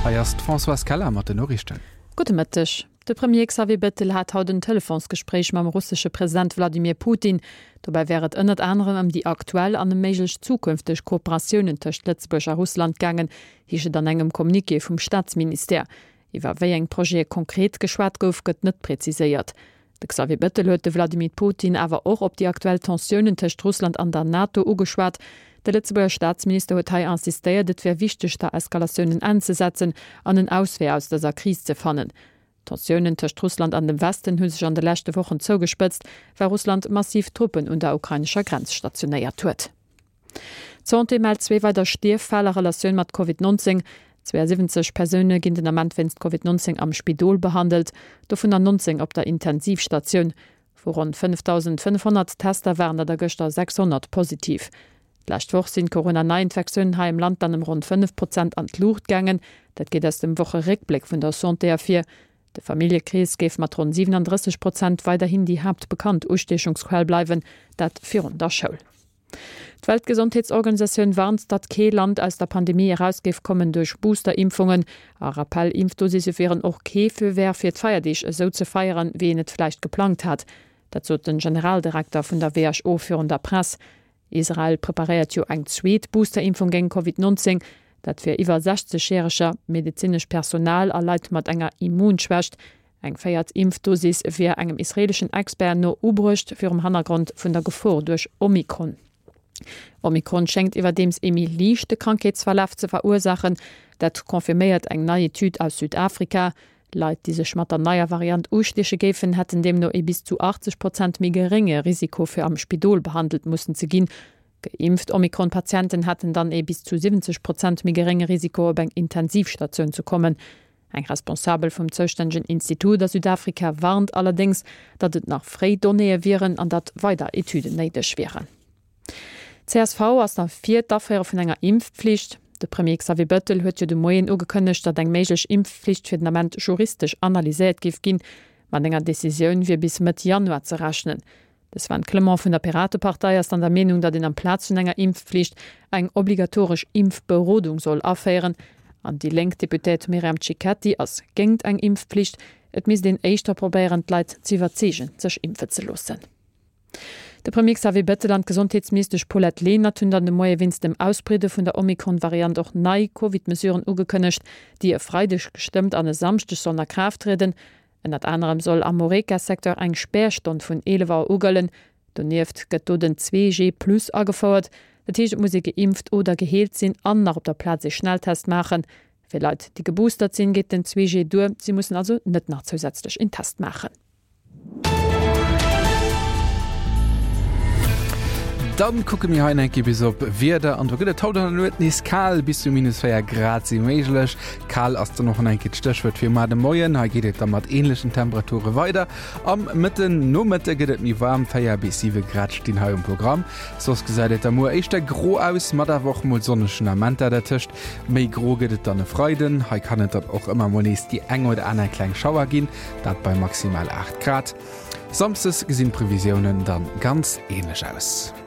Hei ass d'Françoise Keller mat den Noriichten. Gudde Mëtteg. De Premier Xavier Bettel hat haut en Telefonsgespréich mam russesche President Wladimir Putin. Dobäi wär et ënnert anerem ëm déi aktuell an ëm méiglech zukünfteg Kooperatiounen tëscht Lëtzebuerg a Russland gaangen, heescht et an engem Communiqué vum Staatsministère. Iwwer wéi eng Projete konkret geschwat gouf, gëtt net preziséiert. De Xavier Bettel huet de Vladimir Putin awer och op déi aktuell Tensiounen tëscht Russland an der NATO ugeschwat. De Lëtzebuerger Staatsminister huet hei insistéiert, et wär wichteg, der Eskalatioun en Enn ze setzen an en Auswee aus dëser Kris ze fannen. D'Tensiounen tëscht Russland an dem Westen hu sech an de leschte Wochen zougespëtzt, well Russland massiv Truppen un der ukrainescher Grenz stationéiert huet. D'Santé mellt zwee weider Stierffäll a Relatioun mat Covid 19. 72 Persoune ginn den Ament wéinst Covid 19 am Spidol behandelt, dovunner 19 op der Intensivstatioun. Vu ronn 5.500 Tester waren der der gëschter 600 positiv. D'lescht Woch sinn d'Corona-Neiinfektiounen hei am Land dann ëm ronn 5 Prozent an d'Luucht gaangen. Dat geet aus dem Wocheréckbléck vun der Santé ervir. De Familljekrees géif mat ronn 37 Prozent weiderhin déi haaptbekannt Ustiechungsquell bleiwen, dat virun der Schoul. D'Weltgesondheetsorganisatioun warnt, datt kee Land aus der Pandemie eraus géif kommen duerch Booster-Impfungen. A Rappell-Impfdosisse wieren och kee Feu vert fir d'Feierdeeg esou ze feieren, wéi een et vläicht geplangt hat. Dat sot den Generaldirekter vun der WHO virun der Press. Israel preparéiert jo eng zweet Booster-Impfung géint Covid 19, dat fir iwwer 60 Järeger, medezinescht Personal a Leit mat enger Immunschwächt. Eng véiert Impfdosis wier engem israeeleschen Expert no ubruecht, virum Hannergrond vun der Gefor duerch Omikron. Omikron schéngt iwwerdeems ee méi liichte Krankheetsverlaf ze verursaachen. Dat confirméiert eng nei Etüd aus Südafrika. Leit, déi sech mat der neier Variant ustieche géifen, hätten deemno ee bis zu 80 Prozent méi gerénge Risiko fir am Spidol behandelt mussen ze ginn. Geimpft Omikron-Patienten hätten dann ee bis zu 70 Prozent méi gerénge Risiko op eng Intensivstatioun ze kommen. Eng Responsabel vum zoustännegen Institut a Südafrika warnt allerdéngs, datt et nach fréi Donnéeë wieren an datt weider Etüden néideg wieren. Csv ass da fir d'Aféiere vun enger Impfpflicht. De Premier Xavier Bettel huet jo de Moien ugekënnegt, datt eng méiglech Impfpflicht fir den Ament juristesch analyséiert géif ginn. Mat enger Decisioun wier bis Mëtt Januar ze rechnen. De Sven Clement vun der Piratepartei ass dann der Meenung, datt een amplaz vun enger Impfpflicht eng obligatoresch Impfberodung soll aféieren. An déi lénk Deputéiert Myriam Cicchetti ass géingt eng Impfpflicht. Et misst een éischter probéieren, d'Leit z'iwwerzeegen, sech impfe ze loossen. De Premier Xavier Bettel an d'Gesondheetsministesch Paulette Lenert hunn dann de Moie wéinst dem Ausbreede vun der Omikron-Variant och nei Covid-Mesuren ugekënnegt, déi e Freideg gestëmmt an e Samschdeg sollen a Kraaft trieden. Ënnert anerem soll am Horeca-Secteur eng Spärstonn vun 11 Auer u gëllen. Donieft gëtt do den 2G Plus agefouert. Dat heescht, et muss ee geimpft oder geheelt sinn an nach op der Plaz ee Schnelltest maachen. Fir Leit, déi geboostert sinn, geet den 2G duer, si mussen also net nach zousätzlech een Test maachen. Dann kucke mir hei enke bis op Wieder an do gëtt et haut an der Nuet nees kal, bis zu minus 4 Grad si méiglech. Kal ass dann och an enke d'Stéchwuert fir mar de Moien. Hei geet et da mat änlechen Temperature weider. Am Mëtten Nomëtte gëtt et méi waarm, 4 bis 7 Grad stinn hei um Programm. Soss gesäit et da muer éischter gro aus, mat awer och mol sonnegen Amenter dertëscht. Méi gro gëtt et dann e Freiden, hei kann et dann och ëmmer mol nees déi eng oder aner kleng Schauer ginn. Dat bei maximal 8 Grad. Samsdes gesinn d'Previsiounen dann ganz änlech aus.